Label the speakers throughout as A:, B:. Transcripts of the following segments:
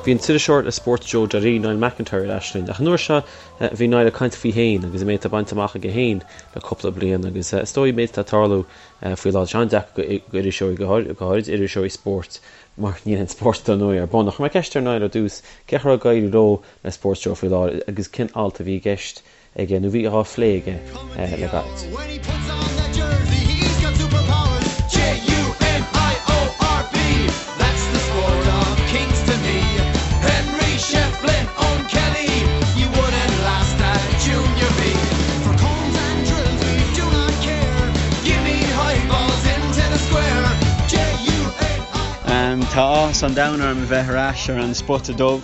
A: Bhí an t-iriseoir le SportsJoe.ie, Niall McIntyre, ar ais linn, ach an uair seo bhí Niall ag caint faoi féin agus an méid atá bainte amach aige féin le cúpla bliain agus is dóigh an méid atá ag tarlú faoi láthair. Tá sé an-deacair d'iriseoirí, go háirid iriseoirí spóirt, mar níl aon spórt dar ndóigh ar bun. Ach chuir mé ceist ar Niall ar dtús cén chaoi a raibh ag éirí leo le Sports Joe faoi láthair agus cén alt a bhí i gceist aige nó bhí á phlé aige le gairid.
B: Tá áthas an domhain orm a bheith ar ais ar an Spota Dubh.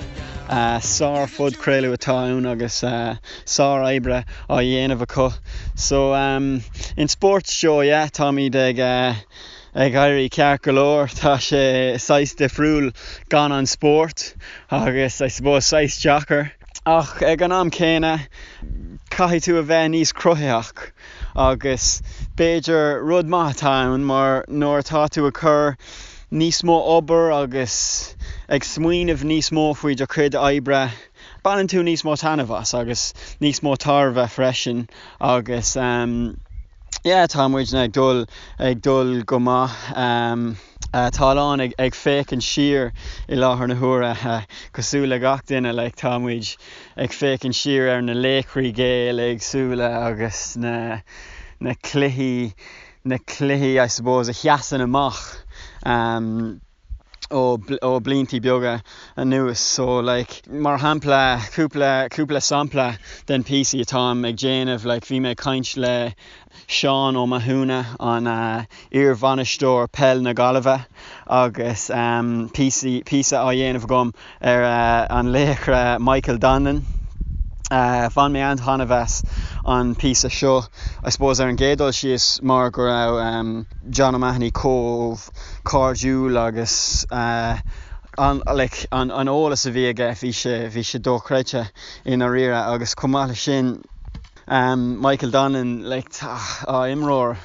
B: Sár-phodchraoladh atá ann agus sár-oibre á dhéanamh acu. So in Sports Joe, yeah, táimid ag ag éirí ceart go leor. Tá sé saghas difriúil gan an spórt agus I suppose saghas deacair. Ach ag an am céanna caithfidh tú a bheith níos cruthaitheach agus b'fhéidir rud maith atá ann mar nuair atá tú ag cur níos mó obair agus ag smaoineamh níos mó faoi do chuid oibre, baineann tú níos mó taitneamh as agus níos mó tairbhe freisin agus yeah tá muidne ag dul ag dul go maith. Tá a lán ag ag féachaint siar i láthair na huaire cosúil le gach duine like tá muid ag féachaint siar ar na laochraí Gael éagsúla agus na na cluichí na cluichí I suppose a sheasann amach ó ó bliantaí beaga anuas. So like mar shampla cúpla cúpla sampla den píosaí atáim ag déanamh like bhí mé ag caint le Seán Ó Mathúna an iar-bhainisteoir peil na Gaillimhe agus píosaí píosa á dhéanamh agam ar an laochra Michael Donlan. Bhain mé an-taitneamh as an píosa seo, I suppose ar an gcéad dul síos mar go raibh John O'Mahony chomh cairdiúil agus an like an eolas a bhí aige bhí sé bhí sé dochreidte i ndáiríre agus chomh maith leis sin Michael Donlan like tá imreoir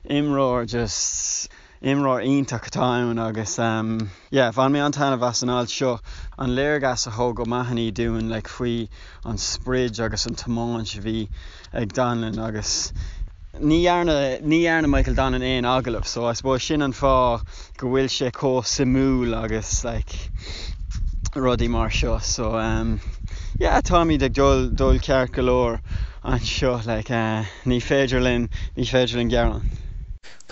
B: imreoir just Imreoir iontach atá ann agus yeah bhain mé an-taitneamh as an alt seo. An léargas a thug O'Mahony dúinn like faoi an sprid agus an tiomáint a bhí ag Donlan agus ní dhearna ní dhearna Michael Donlan aon agallamh so I suppose sin an fáth go bhfuil sé chomh suimiúil agus like rudaí mar seo so yeah táimid ag dul dul ceart go leor anseo like ní féidir linn ní féidir linn gearán.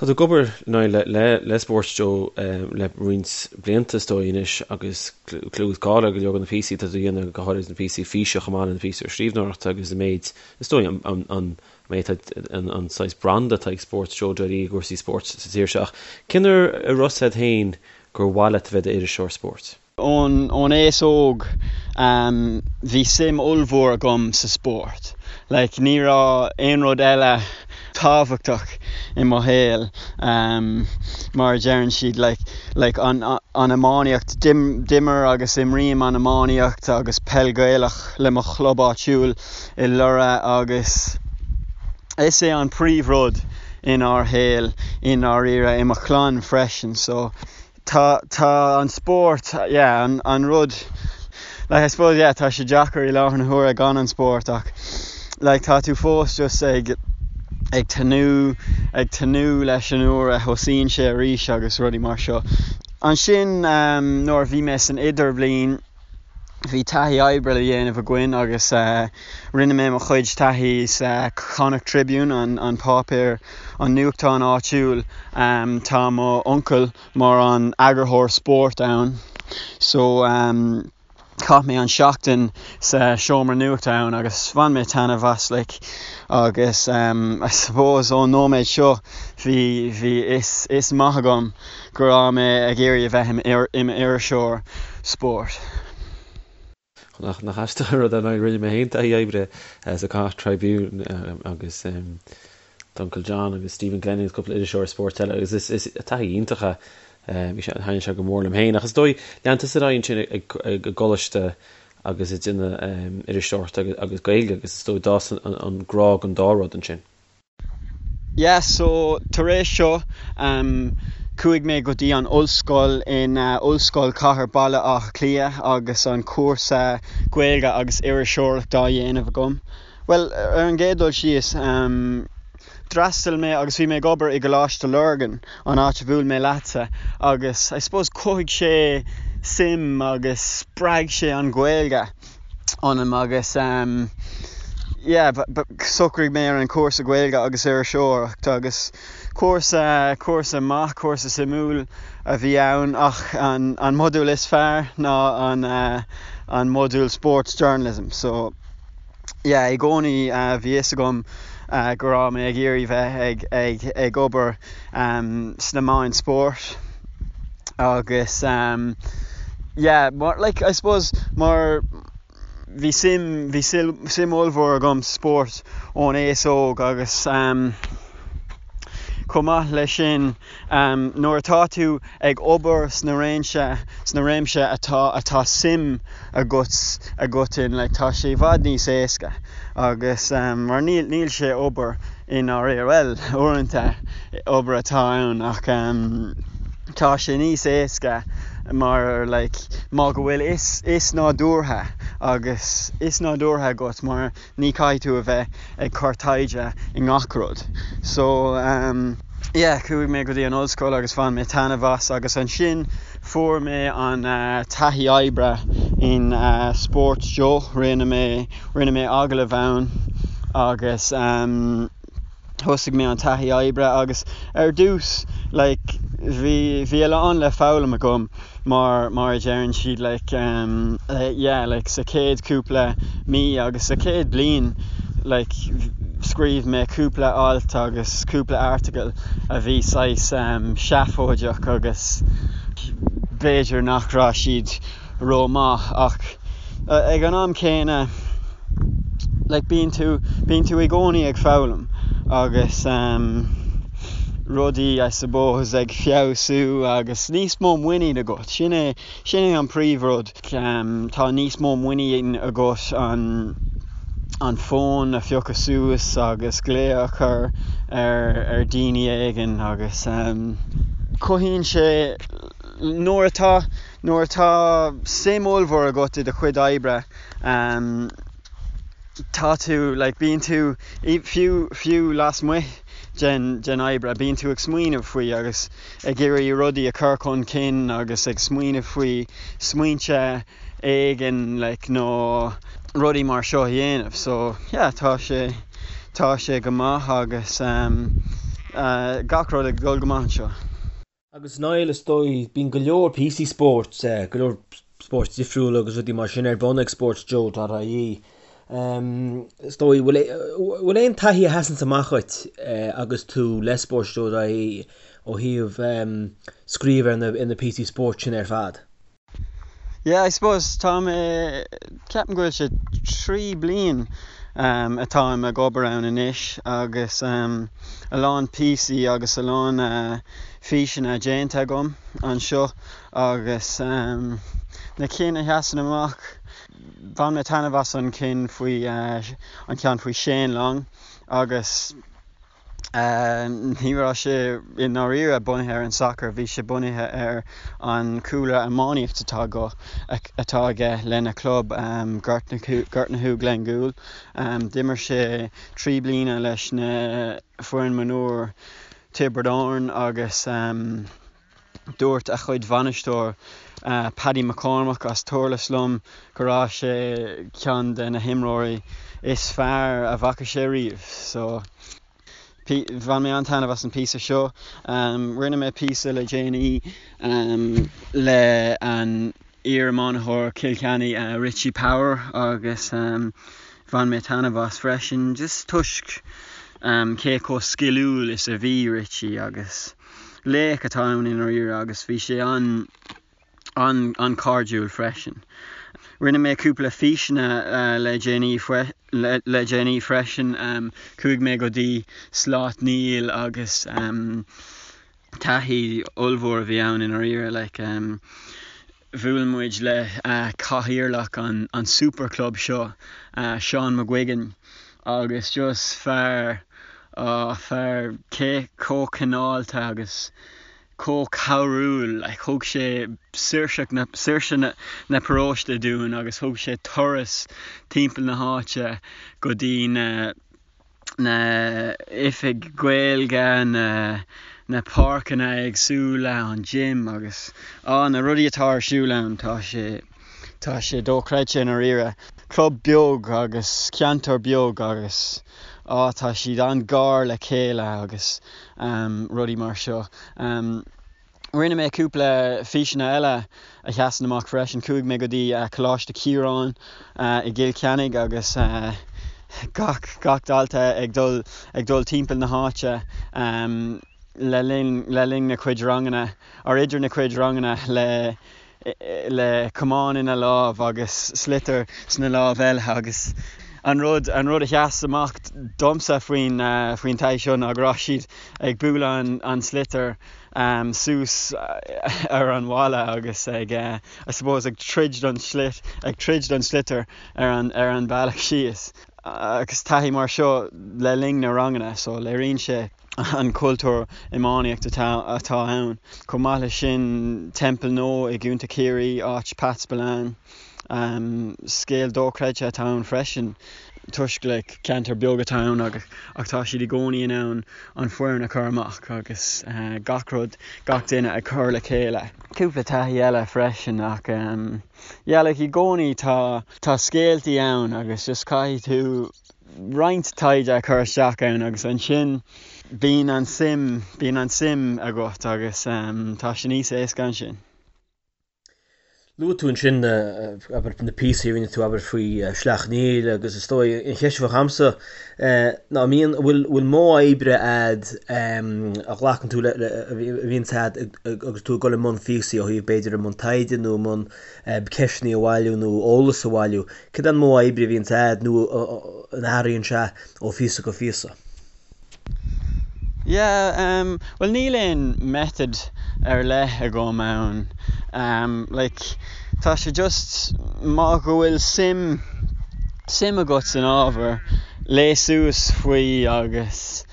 A: Tá tú ag obair Niall le le Sports Joe le roinnt blianta is dóigh anois agus clú is cáil ar go leor de na píosaí atá tú a dhéanamh, go háirid na píosaí físe chomh maith le na píosaí scríbhneoireachta agus an méid is dóigh an an méid atá an saghas branda atá ag Sports Joe dot ie i gcúrsaí spóirt sa tír seo. Ach cén uair a raibh a fhios agat féin gur mhaith leat a bheith i d'iriseoir spóirt?
B: Ón aos óg bhí suim ollmhór agam sa spórt. Like ní raibh aon rud eile tábhachtach i mo shaol mar a deireann siad like like an an iománaíocht. D'imir agus imrím an iománaíocht agus peil Ghaelach le mo chlub áitiúil i Lorra agus is é an príomhrud inár shaol i ndáiríre i mo chlann freisin so Tá, tá an spórt, yeah, an, an rud, like I suppose, yeah, tá sé deacair i láthair na huaire gan an spórt ach like tá tú fós just ag, ag tnúth, ag tnúth leis an uair a thosaíonn sé arís agus rudaí mar seo. Ansin nuair a bhí mé san idirbhliain, bhí taithí oibre le dhéanamh againn agus rinne mé mo chuid taithí sa Connacht Tribune, an páipéar, an nuachtán áitiúil. Tá mo uncail mar an eagarthóir spóirt ann so chaith mé an seachtain sa seomra nuachta ann agus bhain mé taitneamh as like agus I suppose ón nóiméad seo bhí bhí fhios fhios maith agam go raibh mé ag iarraidh a bheith i m'iriseoir spóirt.
A: Nach aisteach an rud é, rinne mé féin taithí oibre sa Connacht Tribune agus d'Uncle John agus Stephen Glennon agus cúpla iriseoir spóirt eile agus is taithí iontach é. Bhí sé, thaitnigh sé go mór liom féin. Ach is dóigh, lean tusa ar aghaidh ansin ag an gcoláiste agus ag déanamh iriseoireachta agus Gaeilge agus is dóigh d'fhás an grá don dá rud ansin.
B: Yeah so tar éis seo ehm Chuaigh mé go dtí an ollscoil in Ollscoil Chathair Baile Átha Cliath agus an cúrsa Gaeilge agus Iriseoireacht á dhéanamh agam. Bhuel, ar an gcéad dul síos, d'fhreastail mé agus bhí mé ag obair i gColáiste Lurgan, an áit a bhuail mé leatsa, agus I suppose chothaigh sé suim agus spreag sé an Ghaeilge ionam agus yeah, shocraigh mé ar an chúrsa Gaeilge agus Iriseoireacht agus cúrsa, cúrsa maith, cúrsa suimiúil a bhí ann ach an, an modúl is fearr ná an, an modúl Sports Journalism so yeah, i gcónaí bhí fhios agam go raibh mé ag iarraidh bheith ag, ag, ag obair sna meáin spóirt agus yeah, mar, like, I suppose mar bhí suim, bhí suim ollmhór agam sa spórt ón aos óg agus chomh maith leis sin nuair atá tú ag obair sna réimse, sna réimse atá, atá suim agat, agat in, like, tá sé i bhfad níos éasca agus mar níl, níl sé obair i ndáiríre, bhuel, uaireanta obair atá ann ach tá sé níos éasca mar like má go bhfuil fhios fhios nádúrtha agus fhios nádúrtha agat mar ní caithfidh tú a bheith ag cur taighde i ngach rud. So yeah chuaigh mé go dtí an ollscoil agus bhain mé taitneamh as agus ansin fuair mé an taithí oibre in Sports Joe, rinne mé Rinne mé agallamh ann agus thosaigh mé an taithí oibre agus ar dtús like bhí bhí a lán le foghlaim agam mar mar a deireann siad like yeah like sa chéad cúpla mí agus sa chéad bliain like scríobh mé cúpla alt agus cúpla article a bhí saghas seafóideach agus b'fhéidir nach raibh siad ró-maith ach ag an am céanna like bíonn tú bíonn tú i gcónaí ag foghlaim agus um, rudaí I suppose ag feabhsú agus níos mó muinín agat sin é sin é an príomhrud um, tá níos mó muinín agat an an fón a phiocadh suas agus glao a chur ar ar daoine éigin agus um, cothaíonn sé nuair atá Nuair atá suim ollmhór agat i do chuid oibre, tá tú, like, bíonn tú, fiú, fiú lasmuigh den, den oibre, bíonn tú ag smaoineamh faoi agus ag iarraidh rudaí a chur chun cinn agus ag smaoineamh faoi smaointe éigin, like, nó rudaí mar seo a dhéanamh. So, yeah, tá sé, tá sé go maith agus gach rud ag dul go maith anseo.
A: Agus Niall, is dóigh, bíonn go leor píosaí spóirt, go leor spóirt difriúla agus rudaí mar sin ar bun ag sportsjoe.ie. Is dóigh, bhfuil aon taithí a sheasanns amach dhuit agus tú le sportsjoe.ie ó thaobh scríobh ar na píosaí spóirt sin ar fad?
B: Yeah, I suppose tá mé, ceapaim go bhfuil sé 3 bliain atáim ag obair ann anois agus a lán píosaí agus a lán físeanna déanta agam anseo agus na cinn a sheasann amach, bhain mé taitneamh as an cinn faoi, an ceann faoi Shane Long agus. Ní raibh sé i ndáiríre bunaithe ar an sacar, bhí sé bunaithe ar an chúlra iománaíocht atá atá aige lena chlub Gortnahoe Glengoole. D'imir sé 3 bliana leis na foireann mionúir Tiobraid Árann agus. Dúirt a chuid bhainisteoir, Paddy McCormack as Durlas liom go raibh sé ceann de na himreoirí is fearr a bhfaca sé riamh. So, bhain mé an-taitneamh as an píosa seo. Rinne mé píosa le déanaí le an iar-iománitheoir Chill Chainnigh, Richie Power agus bhain mé taitneamh as freisin just toisc cé chomh sciliúil is a bhí Richie agus Laoch atá ann i ndáiríre agus bhí sé an-chairdiúil freisin. Rinne mé cúpla físeanna le déanaí le déanaí freisin. Chuaigh mé go dtí Sláth Neill agus taithí ollmhór a bhí ann i ndáiríre. Like, bhuail muid le cathaoirleach an super club seo, Seán McGuigan, agus just fear, fear cé chomh cineálta agus. chomh cabhrúil, like thug sé saoirseacht na, saoirse na, na paróiste dúinn agus thug sé turas timpeall na háite go dtí na, na oifig Gaeilge, na, na páirceanna éagsúla, an gym agus á na rudaí atá ar siúl ann, tá sé, tá sé dochreidte i ndáiríre. Club beag agus ceantar beag agus á tá siad an-ghar le chéile agus rudaí mar seo. Rinne mé cúpla físeanna eile a sheasann amach freisin. Chuaigh mé go dtí Coláiste Chiaráin i gCill Chainnigh agus gach gach dalta ag dul ag dul timpeall na háite le linn le linn na cuid ranganna or idir na cuid ranganna le le camán ina lámh agus sliotar sna lámh eile agus an rud an rud a sheas amach domsa faoin faoin taithí seo ná go raibh siad ag bualadh an an sliotar suas ar an bhalla agus ag I suppose ag troid don slit ag troid don sliotar ar an ar an bealach síos agus taithí mar seo le linn na ranganna so léiríonn sé an cultúr iománaíocht atá ann. Chomh maith leis sin, Templenoe i gContae Chiarraí, áit Pat Spillane. Scéal dochreidte atá ann freisin toisc like ceantar beag atá ann ach tá siad i gcónaí in ann an foireann a chur amach agus gach rud, gach duine ag cur le chéile. Cúpla taithí eile freisin ach yeah like i gcónaí tá tá scéaltaí ann agus just caithfidh tú roinnt taighde a chur isteach ann agus ansin bíonn an suim, bíonn an suim agat agus tá sé níos éasca ansin.
A: Luaigh tú ansin na, abair, na píosaí a rinne tú, abair, faoi Shleacht Néill agus is dóigh an cheist a bheadh a'msa ná an mbíonn, bhfuil, bhfuil modh oibre a'd a ghlacann tú le, a bhíonns a'd agus tú ag dul i mbun phíosaí ó thaobh b'fhéidir i mbun taighde nó i mbun ceisteanna a bhailiú nó eolas a bhailiú. Cad é an modh oibre a bhíonns a'd nó an athraíonn sé ó phíosa go phíosa?
B: Yeah, em, bhuel níl aon method ar leith agam ann. Em, like, tá sé just má go bhfuil suim, suim agat san ábhar, léigh suas faoi agus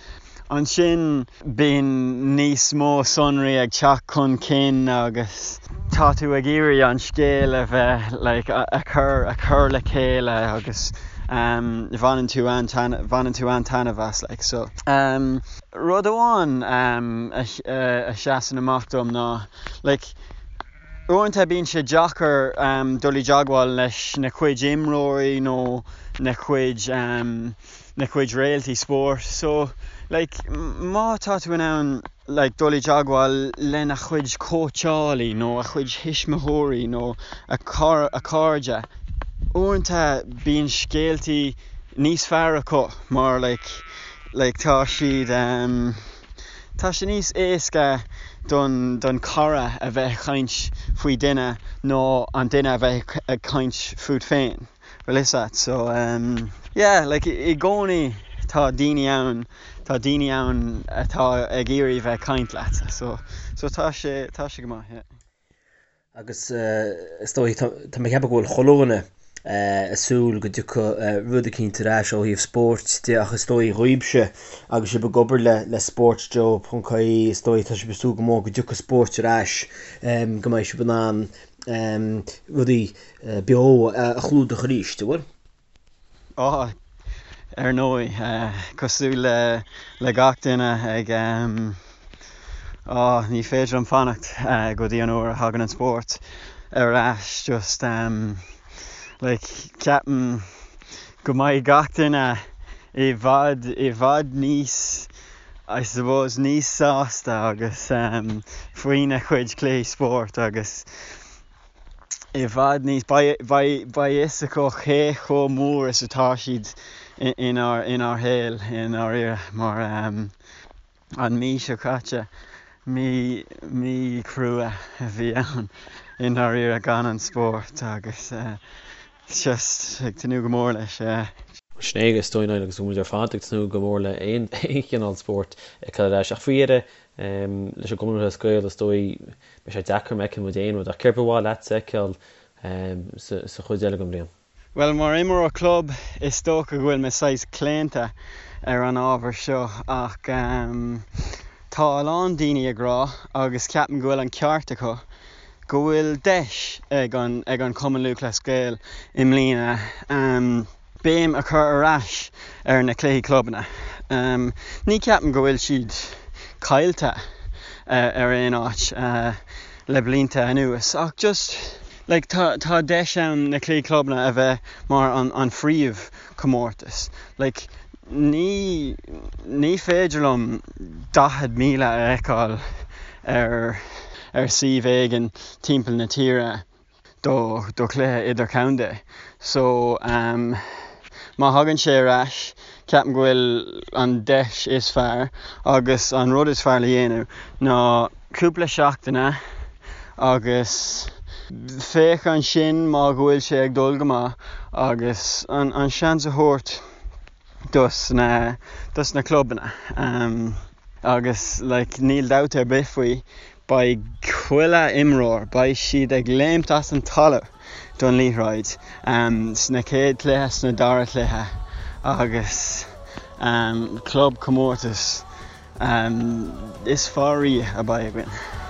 B: ansin bíonn níos mó sonraí ag teacht chun cinn agus tá tú ag iarraidh an scéal a bheith like a chur a chur le chéile agus um bhaineann tú an bhaineann tú an-taitneamh as like so um rud amháin um a a sheasann amach dom ná like uaireanta bíonn sé deacair um dul i dteagmháil leis na cuid imreoirí nó na cuid um na cuid réaltaí spóirt so like má tá tú in ann like dul i dteagmháil lena chuid cóitseálaí nó a chuid thuismitheoirí nó a a cairde uaireanta bíonn scéaltaí níos fearr acu mar like like tá siad um tá sé níos éasca don don cara a bheith ag caint faoi duine ná an duine a bheith ag caint fút féin. Bhfuil fhios a't so ehm yeah like i gcónaí tá daoine ann tá daoine ann atá ag iarraidh bheith ag caint leat so so tá sé tá sé go maith yeah.
A: Agus is dóigh tá tá mé ag ceapadh go bhfuil chuile dhuine ag súil go dtiocfaidh rud eicínt ar ais ó thaobh spóirt de ach is dóigh dhaoibhse agus sibh ag obair le le Sportsjoe ponc ie is dóigh tá sibh ag súil go mór go dtiocfaidh spóirt ar ais go mbeidh sibh in ann rudaí beo a chlúdach arís, an bhfuil?
B: Á, ar ndóigh, cosúil le gach duine ag, á, ní féidir liom fanacht go dtí an uair a thagann an spórt ar ais, just, like, ceapaim go mbeidh gach duine i bhfad, i bhfad níos, I suppose, níos sásta agus faoina chuid cluichí spóirt agus, i bhfad níos, beidh beidh fhios acu cé chomh mór is atá siad inár inár shaol i ndáiríre mar an mí seo caite, mí mí chrua a bhí ann i ndáiríre gan an spórt agus just ag tnúth go mór leis.
A: Sin é is dóigh Niall agus muid ar fad ag tnúth go mór le aon chineál spóirt a fheiceáil ar ais ach faoi dheireadh leis an gCumann Lúthchleas Gael is dóigh Beidh sé deacair má fheiceann muid aon rud, ach céard ba mhaith leatsa a fheiceáil sa chuid eile den bhliain?
B: Bhuel, mar imreoir club, is dócha go bhfuil mé saghas claonta ar an ábhar seo ach. Tá a lán daoine ag rá, agus ceapaim go bhfuil an ceart acu, go bhfuil deis ag an ag an Chumann Lúthchleas Gael i mbliana béim a chur ar ais ar na cluichí clubanna. Ní ceapaim go bhfuil siad caillte ar aon áit le blianta anuas ach just like tá tá deis ann na cluichí clubanna a bheith mar an an phríomh chomórtas. Like ní ní féidir liom 40,000 a fheiceáil ar ar suíomh éigin timpeall na tíre do do chluiche idirchontae. So um má thagann sé ar ais ceapaim go bhfuil an deis is fearr agus an rud is fearr le dhéanamh ná cúpla seachtaine agus féach ansin má go bhfuil sé ag dul go maith agus an an seans a thabhairt dos na dos na clubanna um agus like níl dabht ar bith faoi beidh chuile imreoir beidh siad ag léimt as an talamh don liathróid um sna chéad chluiche sna dara cluiche agus um club comórtas um is fearr riamh a bheidh againn.